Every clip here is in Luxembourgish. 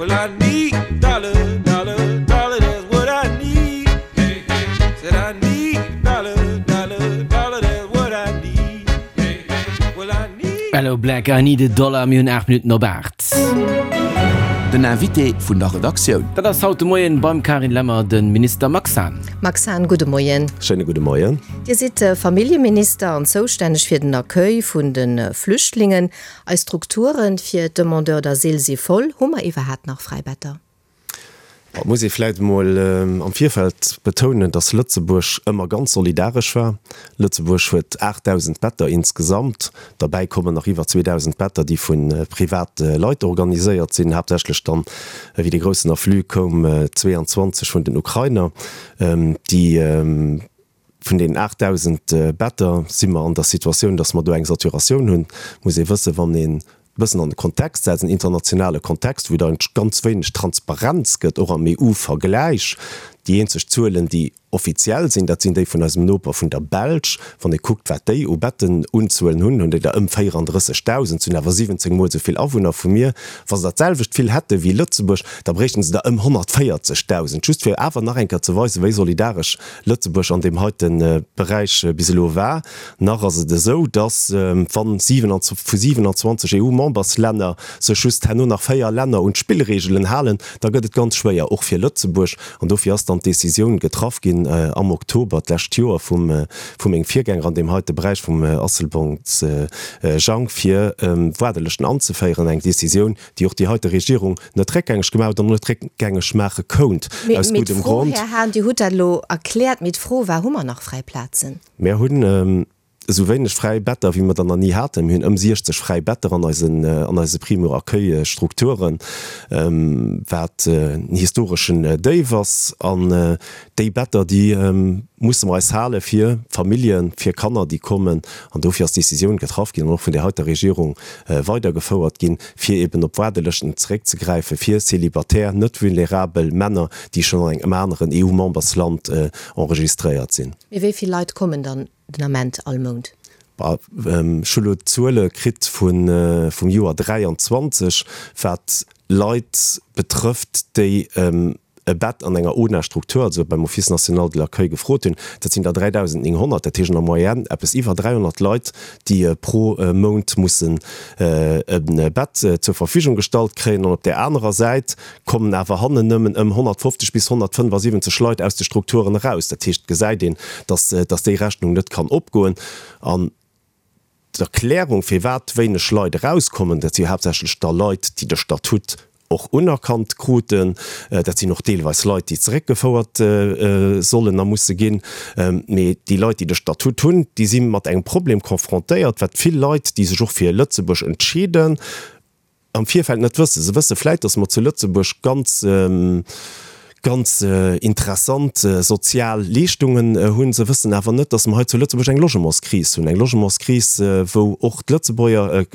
Well I need a dollar, dollar, dollar, that's what I need. Hey, hey. Said I need a dollar, dollar, dollar, that's what I need. Hey, hey. Well I need. Aloe Blacc, I need a dollar, mir hunn 8 Minutten op 8. Den Invité vun der Redaktioun. Dat ass haut de Moien beim Carine Lemmer de Minister Max Hahn. Max Hahn, gudde Moien. Schéine gudde Moien. Dir sidd Familljeminister an zoustänneg fir den Accueil vun de Flüchtlingen. Eis Strukture fir d'Demandeurs d'asile si voll. Hu mer iwwerhaapt nach fräi Better? Et muss ee vläicht emol am Virfeld betounen, dass Lëtzebuerg ëmmer ganz solidaresch war. Lëtzebuerg huet 8.000 Better insgesamt. Derbäi kommen nach iwwer 2.000 Better, déi vu private Leit organiséiert sinn, haaptsächlech dann, wéi de groussen Afflux koum, 22 vun den Ukrainer, déi Vun deenen 8.000 Better si mer an der Situatioun, dass mer do eng Saturatioun hunn. Muss ee wëssen, wann een e bëssen an de Kontext setzt, en internationale Kontext, wou et eigentlech ganz wéineg Transparenz gëtt, och am EU-Vergläich. Déi eenzeg Zuelen, déi offiziell sinn, dat sinn déi vun eisem Noper, vun der Belsch. Wann ee kuckt, wat déi u Bettenunzuelen hunn, hunn déi der ëm 34.000, se hunn awer 17 Mol esou vill Awunner vu mir. Wa se dat selwecht vill hätte wéi Lëtzebuerg, da bréichten se der ëm 140.000. Just fir awer nach eng Kéier ze weisen, wéi solidaresch Lëtzebuerg an deem heite Beräich bis elo war. Nach ass et esou, datt wa vu 27 EU-Memberslänner sech just herno nach 4 Länner un d'Spillreegelen halen, da gëtt et ganz schwéier, och fir Lëtzebuerg. An dofir ass dann d'Decisioun getraff ginn am Oktober d'lescht Joer vum vu mengem Virgänger an deem heite Beräich, vum Asselborns Jang, fir Waardelëschten anzeféieren. Eng Decisioun, déi och déi heite Regierung net réckgängeg gemaach huet an och net réckgängeg maache kount, aus Mee guddem d'Fro, Grond. Här Hahn, Dir hutt dat elo erkläert, mee d'Fro war, Hu mer nach fräi Plazen? Mir hunn esou wéineg fräi Better, wéi mer der nach ni haten. Mir hunn ëm 60 fräi Better an eisen, an eise Primo-Accueil-Strukturen, wat en historeschen Déif ass. An déi Better, déi musse mer eis hale fir Familljen, fir Kanner, déi kommen. An dofir ass d'Decisioun getraff ginn an och vun där heiter Regierung weidergefouert ginn, fir eben op Waardelëschten zeréckzegräife fir célibataire, net vulnerabel Männer, déi schonn an engem aneren EU-Membersland enregistréiert sinn. Mee wéi vill Leit kommen dann den Ament all Mount? Ech hu lo d'Zuele kritt vum Joer 23, wat Leit betrëfft, déi e Bett an enger ONA-Struktur, also beim Office national de l'accueil, gefrot hunn. Dat sinn der 3.900, dat heescht an der Moyenne eppes iwwer 300 Leit, déi pro Mount mussen e Bett zur Verfügung gestallt kréien. An op där anerer Säit kommen awer hannen nëmmen ëm 150 bis 175 Leit aus de Strukturen eraus. Dat heescht, et gesäit een, dass déi Rechnung net kann opgoen. An D'Erklärung, firwat wéineg Leit erauskommen, dat si haaptsächlech da Leit, déi de Statut och unerkannt kruten. Dat sinn och deelweis Leit, déi zeréckgefouert sollen a musse ginn. Mee déi Leit, déi de Statut hunn, déi si mat engem Problem confrontéiert, wat vill Leit, déi sech och fir Lëtzebuerg entscheeden, am Virfeld net wëssen. Se wësse vläit, datt mer zu Lëtzebuerg ganz, ganz interessant sozial Leeschtungen hunn. Se wëssen awer net, datt mer hei zu Lëtzebuerg eng Logementskris hunn, eng Logementskris, wou och d'Lëtzebuerger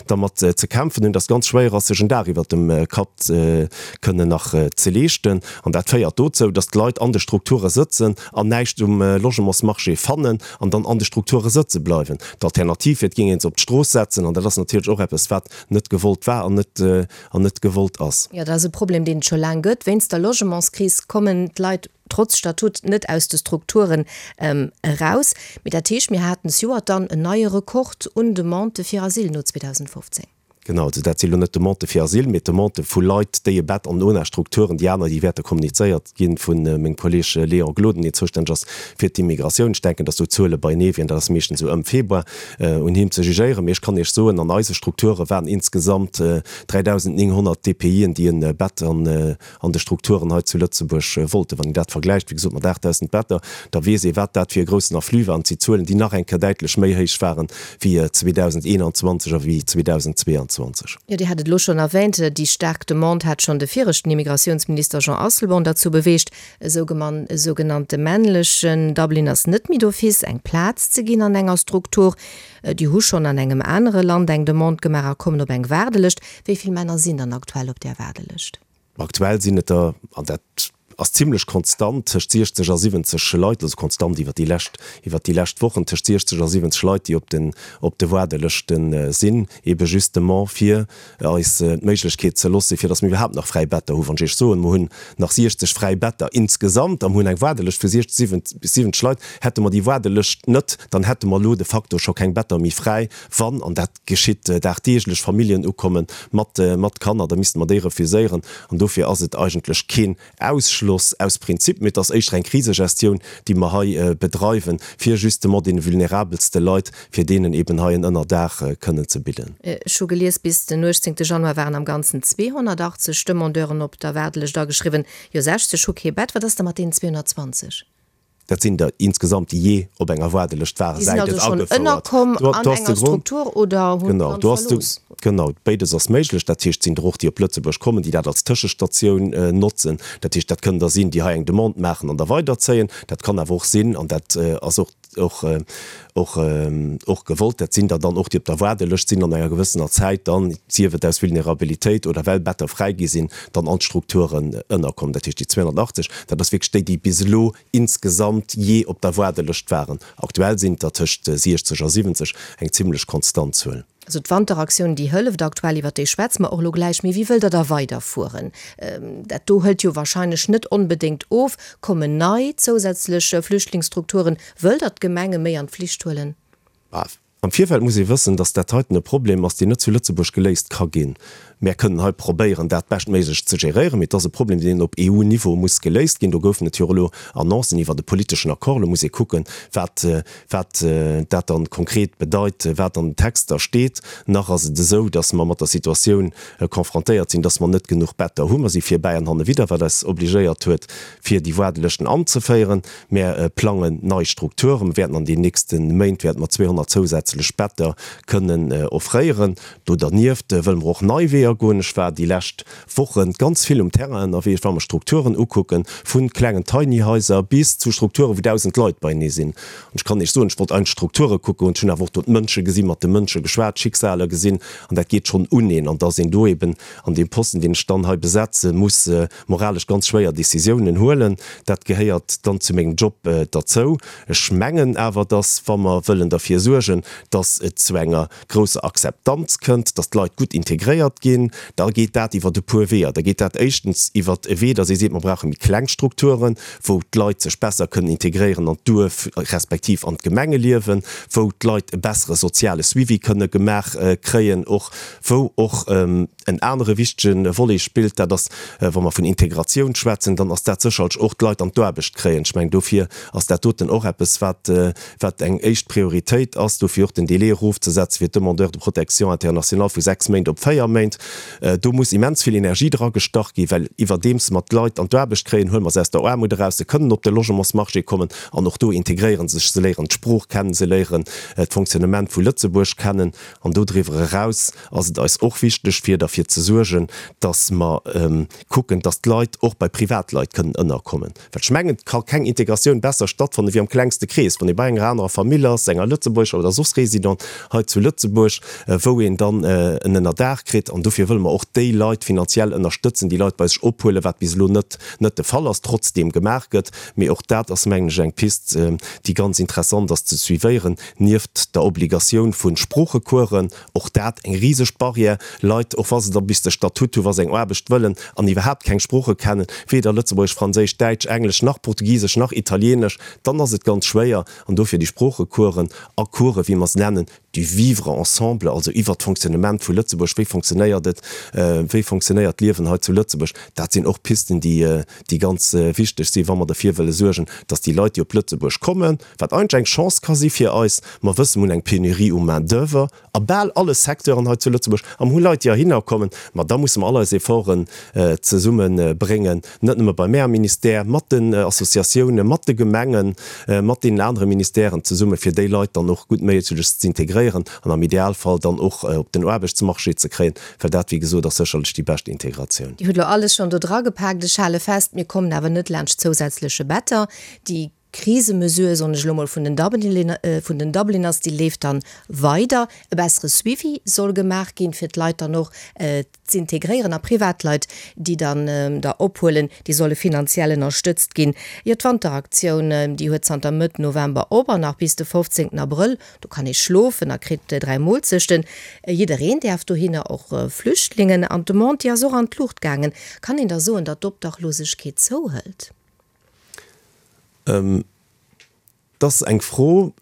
dermat ze kämpfen hunn, datt et ganz schwéier ass, sech en Daach iwwert dem Kapp kënnen nach ze leeschten. An dat féiert dozou, datt d'Leit an de Strukture sëtzen an näischt um Logementsmarché fannen an dann an de Strukture sëtze bleiwen. D'Alternativ wier, et géing ee se op d'Strooss setzen, an dat ass natierlech och eppes, wat net gewollt war an net an net gewollt ass. Jo, dat ass e Problem, deen et scho laang gëtt. Wéinst der Logementskris kommen d'Leit trotz Statut net aus de Strukturen eraus. Mee dat heescht, mir haten zejoert dann en neie Rekord un Demandë fir Asyl no 2015. Genau, also dat si lo net Demandë fir Asyl, mee Demandë vu Leit, déi e Bett an ONA-Strukturen, déi aner, déi wäerte kommunizéiert gi vu mengem Kolleeg Léon Gloden, deen zoustänneg ass fir d'Immigratioun. Ech denken, datt do d'Zuele beienee wieren, dat ass meeschtens esou ëm Februar. un him ze jugéieren, mee ech kann Iech soen, an eise Strukture waren insgesamt 3.900 DPIen, déi e Bett an de Strukturen hei zu Lëtzebuerg wollten. Wann een dat vergläicht, wéi gesot, mat 8.000 Better, da weess ee wat dat fir e groussen Afflux war. An et si Zuelen, déi nach eng Kéier däitlech méi héich waren wéi 2021 a wéi 2022. Jo, Dir hat et elo schonn erwähnt, déi staark Demande hat schonn de viregten Immigratiounsminister Jean Asselborn derzou beweegt, E sougenannte männlechen Dublin ass net méi d'office eng Plaz ze ginn an enger Struktur. Déi hu schonn an engem anere Land eng Demande gemaach a kommen op eng Waardelëscht. Wéi vill Männer sinn dann aktuell op där Waardelëscht? Aktuell sinn et der, an dat. ass zimlech konstant tëscht 60 a 70 Leit, also konstant iwwer déi lescht, iwwer déi lescht Wochen, tëscht 60 a 70 Leit, déi op den, op de Waardelëschte sinn, ebe justement fir eis d'Méiglechkeet ze loosse fir datt mir iwwerhaapt nach fräi Better hunn. Wann ech Iech soen, mer hunn nach 60 fräi Better insgesamt a mer hunn eng Waardelëscht vu 60 bis 70 Leit, hätte mer déi Waardelëscht net, dann hätte mer elo de facto scho keng Better méi fräi, wann, an dat geschitt dagdeeglech, Familljen ukomme mat mat Kanner, da misste mer déi refuséieren. An dofir ass et eigentlech keen Ausschloss aus Prinzip, mee et ass éischter eng Krisegestioun, déi mer hei bedreiwen, fir justement deene vulnerabelste Leit, fir deenen eben hei en Ënnerdaach kënnen ze bidden. Ech hu gelies, bis den 18 Januar waren am Ganzen 280 Demandeuren op der Waardelëscht ageschriwwen. Jo, 60 hu kee Bett. Wat ass da mat deenen 220? Dat sinn der insgesamt, déi jee op enger Waardelëscht waren, Déi sinn säit et also schonn agefouert. ënnerkomm Do, an do ass de enger Grond. Struktur oder hunn Genau, d'Land do ass de, verlooss? genau, béides ass méiglech. Dat heescht, et sinn der och, déi op Lëtzebuerg kommen, déi dat als Tëschestatioun notzen. Dat heescht, dat kënnen der sinn, déi hei eng Demande maachen an da weiderzéien. Dat kann awer och sinn, an dat ass och, och, och, och gewollt, dat sinn der dann och, déi op der Waardelëscht sinn an enger gewëssener Zäit dann, sief et aus Vulnerabilitéit oder well Better fräi gi sinn, dann an d'Strukturen ënnerkommen. Dat heescht, déi 280, dat ass wierklech déi, déi bis elo insgesamt jee op der Waardelëscht waren. Aktuell sinn et der tëscht 60 a 70, eng zimlech konstant Zuel. Also d'Wanteraktioun, déi hëlleft aktuell, iwwer déi schwätze mer och elo gläich. Mee wéi wëllt Der da weiderfueren? Dat do hëlt jo wahrscheinlech net onbedéngt of. Kommen nei zousätzlech Flüchtlingsstrukturen? Wëllt Der d'Gemenge méi an d'Flicht huelen? Am Virfeld muss ee wëssen, dass dat heiten e Problem ass, deen net zu Lëtzebuerg geléist ka ginn. Mär kënnen hei probéieren, dat beschtméiglech ze geréieren, mee et ass e Problem, deen op EU-Niveau muss geléist ginn. Do goufen et jo och elo Annoncen iwwert e politeschen Accord. Elo muss ee kucken, wat, wat dat dann konkret bedeit, wat an den Texter steet. Nach ass et esou, dass mer mat der Situatioun confrontéiert sinn, dass mer net genuch Better hunn. Mer si virbäi an hannewidder, wat eis obligéiert huet, fir déi Waardelëschten anzeféieren. Mär plangen nei Strukturen. Mer wäerten an den nächste Méint wäerte mer 200 zousätzlech Better kënnen offréieren. Do dernieft wëlle mer och nei Weeër goen. Ech war déi lescht Woche ganz vill um Terrain ënnerwee. Ech war mer Strukturen ukucken, vu klengen Tiny Haiser bis zu Strukturen, wou 1.000 Leit beienee sinn. An ech kann Iech soen, ech wollt eigentlech Strukture kucken hunn. Ech hunn awer och do d'Mënsche gesinn, mat de Mënsche geschwat, Schicksaler gesinn. An dat geet schonn uneen. An dass een do eben an deem Posten, deen ech dann hei besetze muss, moralesch ganz schwéier Décisiounen huelen. Dat gehéiert dann zu mengem Job derzou. Ech mengen awer, dass, wa mer wëllen derfir suergen, dass et zu enger grousser Akzeptanz kënnt, dass d'Leit gutt integréiert ginn, da geet dat iwwer e puer Weeër. Da geet dat éischtens iwwer e Wee, dass ee seet, mer brauche méi kleng Strukturen, wou d'Leit sech besser kënnen integréieren an d'Duerf respektiv an d'Gemengeliewen, wou d'Leit e bessere soziale Suivi kënne gemaach kréien och, wou och En anere wichtege Volet spillt, dat ass, wa mer vun Integratioun schwätzen, dann ass dat sécherlech och d'Leit an d'Aarbecht kréien. Ech mengen, dofir ass dat doten och eppes, wat, wat eng éischt Prioritéit ass, dofir och den Délai erofzesetzen fir d'Demandeurs de protection internationale vu 6 Méint op 4 Méint. Do muss immens vill Energie dragestach ginn, well iwwerdeems mer d'Leit an d'Aarbecht kréien, huele mer se aus der Aarmut eraus, se kënnen op de Logementsmarché kommen an och do integréiere se sech, se léieren d'Sprooch kennen, se léieren d'Fonctionnement vu Lëtzebuerg kennen an dodriwwer eraus ass et eis och wichteg, fir derfir ze suergen, dass mer kucken, dass d'Leit och bei Privatleit kënnen ënnerkommen. Well ech mengen, et ka keng Integratioun besser stattfanne wéi am klengste Krees, wann ee bei enger anerer Famill ass, enger lëtzebuergescher oder soss Résident hei zu Lëtzebuerg, wou een dann en Ënnerdaach kritt. An dofir wëlle mer och déi Leit finanziell ënnerstëtzen, déi Leit bei sech ophuelen, wat bis elo net net de Fall ass, trotzdeem gemaach gëtt. Mee och dat ass, mengen ech, eng Pist, déi ganz interessant ass ze suivéieren, nieft der Obligatioun vu Sproochecoursen. Och dat eng riseg Barrière. Leit, och wa se da bis de Statut hu wa se eng Aarbecht wëllen an iwwerhaapt keng Sprooche kennen, weder Lëtzebuergesch, Franséisch, Däitsch, Englesch nach Portugisesch nach Italienesch, dann ass et ganz schwéier. An dofir déi Sproochecoursen a Coursen, wéi mer se nennen, du vivre ensemble, also iwwert d'Fonctionnement vu Lëtzebuerg, wéi fonctionnéiert et, wéi fonctionnéiert d'Liewen hei zu Lëtzebuerg, dat sinn och Pisten, déi, déi ganz wichteg sinn, wa mer derfir wëlle suergen, dass déi Leit, déi op Lëtzebuerg kommen, wat eigentlech eng Chance ka si fir eis, mer wëssen, mer hunn eng Pénurie u Main d'oeuvre a bal alle Secteuren hei zu Lëtzebuerg, a mer hu Leit, déi heihinner kommen, ma da musse mer all eis Efforten zesumme bréngen, net nëmme bei mär am Ministère, mat den Associatiounen, mat de Gemengen, mat deenen anere Ministèren zesumme, fir déi Leit dann och guttméiglechst z'integréieren an am Idealfall dann och op den Aarbechtsmarché ze kréien, well dat, wéi gesot, ass sécherlech déi bescht Integratioun. Dir hutt elo alles schonn do dragepaakt. Ech hale fest, mir kommen awer net laanscht zousätzleche Better, déi. Krisemesure, soen ech elo mol, vun den vun den Dubliners, déi leeft dann weider. E bessere Suivi soll gemaach ginn, fir d'Leit dann och z'integréieren. A Privatleit, déi dann der ophuelen, déi solle finanziell ënnerstëtzt ginn. Jo, d'Wanteraktioun, déi huet zanter Mëtt November op an nach bis de 15 Abrëll. Do kann ee schlofen a kritt 3 Moolzechten. Jiddereen däerf dohinner, och Flüchtlingen. An d'Demande, déi ass och an d'Luucht gaangen. Kann een da soen, datt d'Obdachlosegkeet zouhëlt? Et ass eng Fro,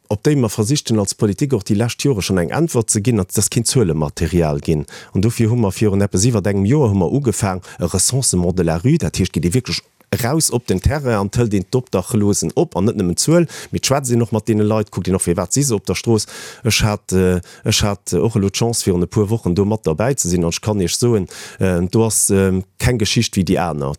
op déi mer versicht hunn als Politik och déi lescht Jore schonn eng Äntwert ze ginn, an et ass keen Zuelematerial ginn. An dofir hu mer virun eppes iwwert engem Joer hu mer ugefaang e Recensement de la rue, dat heescht, geet ee wierklech eraus op den Terrain an hëlt een d'Obdachlosen op, an net nëmmen d'Zuel, mee et schwätzt een och mat deene Leit, kuckt een och firwat si se op der Strooss. Ech hat, ech hat och elo d'Chance virun e puer Wochen do mat derbäi ze sinn an ech kann Iech soen, do ass keng Geschicht wéi déi aner.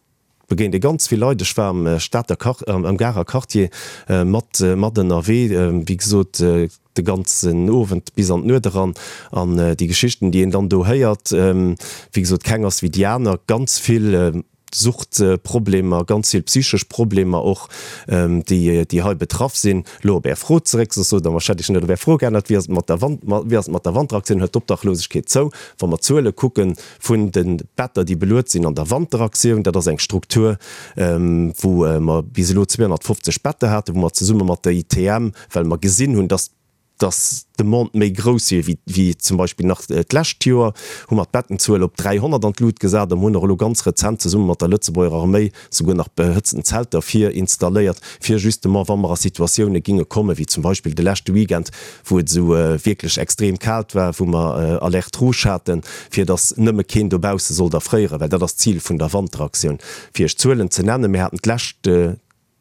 Begéint ee ganz vill Leit. Ech war am Stater Quart-, am Garer Quartier mat, mat ënnerwee, wéi gesot, de ganzen Owend bis an d'Nuet eran. An déi Geschichten, déi een dann do héiert, wéi gesot, keng ass wéi déi aner. Ganz vill Suchtproblemer, ganz vill psychesch Problemer och, déi, déi hei betraff sinn. Elo op Är Fro zeréck, soss sot Der mer, ech hätt Iech net op Är Fro geännert, Wéi ass et mat der Wand, wéi ass et mat der Wanteraktioun? Hëlt d'Obdachlosegkeet zou? Wa mer d'Zuele kucken, Vun de Better, déi beluet sinn an der Wanteraktioun, dat ass eng Struktur, wou mer bis elo 250 Better haten, wou mer zesumme mat der ITM, well mer gesinn hunn, dass dass d'Demande méi grouss wier wéi zum Beispill nach d'lescht Joer, hu mer d'Bettenzuel op 300 an d'Lut gesat a mer hunn och elo ganz rezent zesumme mat der Lëtzebuerger Arméi souguer nach behëtzten Zelter vir installéiert, fir justement, wa mer a Situatioune ginge kommen, wéi zum Beispill de leschte Weekend, wou et esou wierklech extrem kalt war, wou mer Alerte rouge haten, fir datt nëmme keen dobausse sollt erfréieren, well dat ass d'Zil vun der Wanteraktioun. Fir Iech Zuelen ze nennen, Mir haten d'lescht,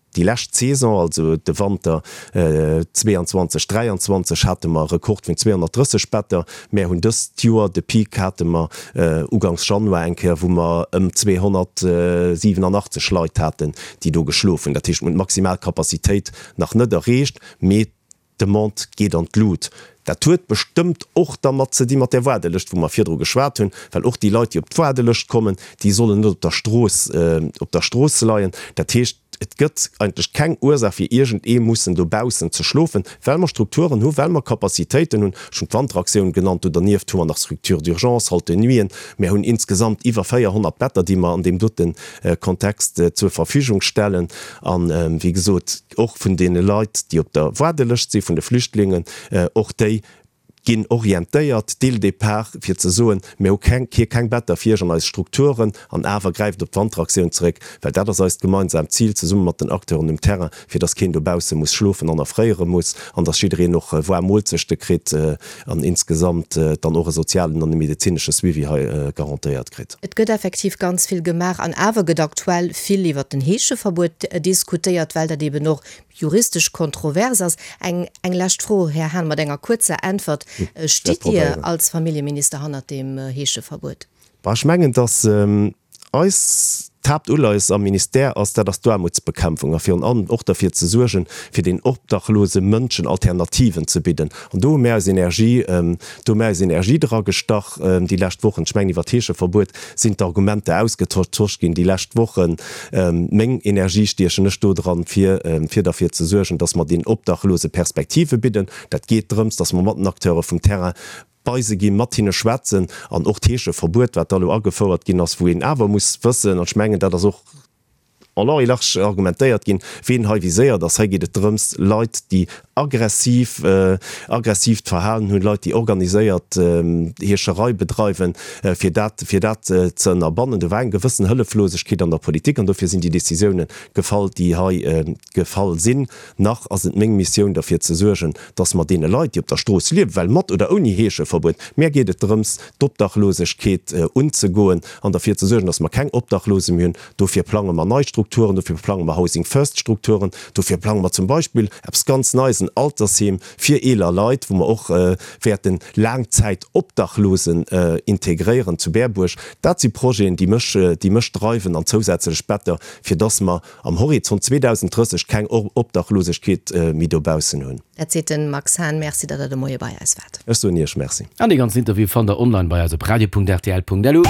déi lescht Saison, also de Wanter 22, 23, hate mer e Rekord vun 230 Better. Mär hunn dëst Joer, de Peak hate mer ugangs Januar eng Kéier, wou mer ëm 287 Leit haten, déi do geschlof hunn. Dat heescht, mir hunn d'maximal Capacitéit nach net erreecht, mee d'Demande geet an d'Lut. Dat huet bestëmmt och dermat ze di mat där Waardelëscht, wou mer virdru geschwat hunn, well och déi Leit, déi op d'Waardelëscht kommen, déi sollen net op der Strooss, op der Strooss leien. Dat heescht, et gëtt eigentlech keng Ursaach fir iergendee mussen dobaussen ze schlofen, well mer Strukturen hu, well mer Capacitéiten hunn. Ech hunn d'Wanteraktioun genannt, do dernieft hu mer nach Structures d'urgence, Halte nuiten. Mer hunn insgesamt iwwer 400 Better, déi mer an deem dote Kontext zur Verfügung stellen. An, wéi gesot, och vun deene Leit, déi op der Waardelëscht si vun de Flüchtlingen, och déi ginn orientéiert dès le départ, fir ze soen, mir hu keng, hier keng Better fir iech an eis Strukturen, an awer gräift op d'Wanteraktioun zeréck, well dat ass eist gemeinsaamt Zil, zesumme mat den Acteuren um Terrain, fir dass keen dobausse muss schlofen an erfréiere muss an dass jiddereen och waarm Moolzechte kritt an insgesamt dann och e sozialen an e medezinesche Suivi hei garantéiert kritt. Et gëtt effektiv ganz vill gemaach an awer gëtt aktuell vill iwwert den Heescheverbuet diskutéiert, well dat eben och juristesch kontrovers ass. Eng eng lescht Fro, Här Hahn, mat enger kuerzer Äntwert, Stitt Dir als Familljeminister hannert deem Heescheverbuet? Bah, ech mengen, dass eis d'Haaptuleies am Ministère ass, dat ass d'Aarmutsbekämpfung a virun allem och derfir ze suergen, fir den obdachlose Mënschen Alternativen ze bidden. An do hu mär eis Energie, do hu mär eis Energie dra gestach déi lescht Wochen. Ech mengen, iwwer d'Heescheverbuet sinn d'Argumenter ausgetosch ginn déi lescht Wochen. Meng Energie stiechen ech do dran, fir, fir derfir ze suergen, dass mer den Obdachlose Perspektive bidden. Dat geet drëms, dass mer mat den Acteure vum Terrain bei se ginn, mat hinne schwätzen an och d'Heescheverbuet, wat da elo agefouert ginn ass, wou een awer muss wëssen, an ech mengen, dat ass och en long et large argumentéiert ginn, ween hei viséiert ass. Hei geet et drëms, Leit, déi aggressiv, aggressiivt Verhalen hunn, Leit, déi organiséiert Heescherei bedreiwen, fir dat, fir dat ze ënnerbannen. Do war eng gewëssen Hëlleflosegkeet an der Politik an dofir sinn déi Décisiounen gefall, déi hei gefall sinn. Nach ass et meng Missioun derfir ze suergen, dass mer deene Leit, déi op der Strooss liewen, well mat oder ouni Heescheverbuet, mär geet et drëms, d'Obdachlosegkeet unzegoen an derfir ze suergen, dass mer keng Obdachlose méi hunn. Dofir plange mer nei Strukturen, dofir plange mer Housing First Strukturen, dofir plange mer zum Beispill eppes ganz Neies, en Altersheem fir eeler Leit, wou mer och wäerten Laangzäitobdachlosen integréieren zu Berbuerg. Dat si Projeten, déi mech, déi mech dreiwen an zousätzlech Better, fir dass mer am Horizont 2030 keng Obdachlosegkeet méi dobaussen hunn. Dat seet de Max Hahn. Merci, datt Der de Moie bei eis waart. Ech soen Iech Merci. An dee ganzen Interview fannt der online bei eis op radio.rtl.lu.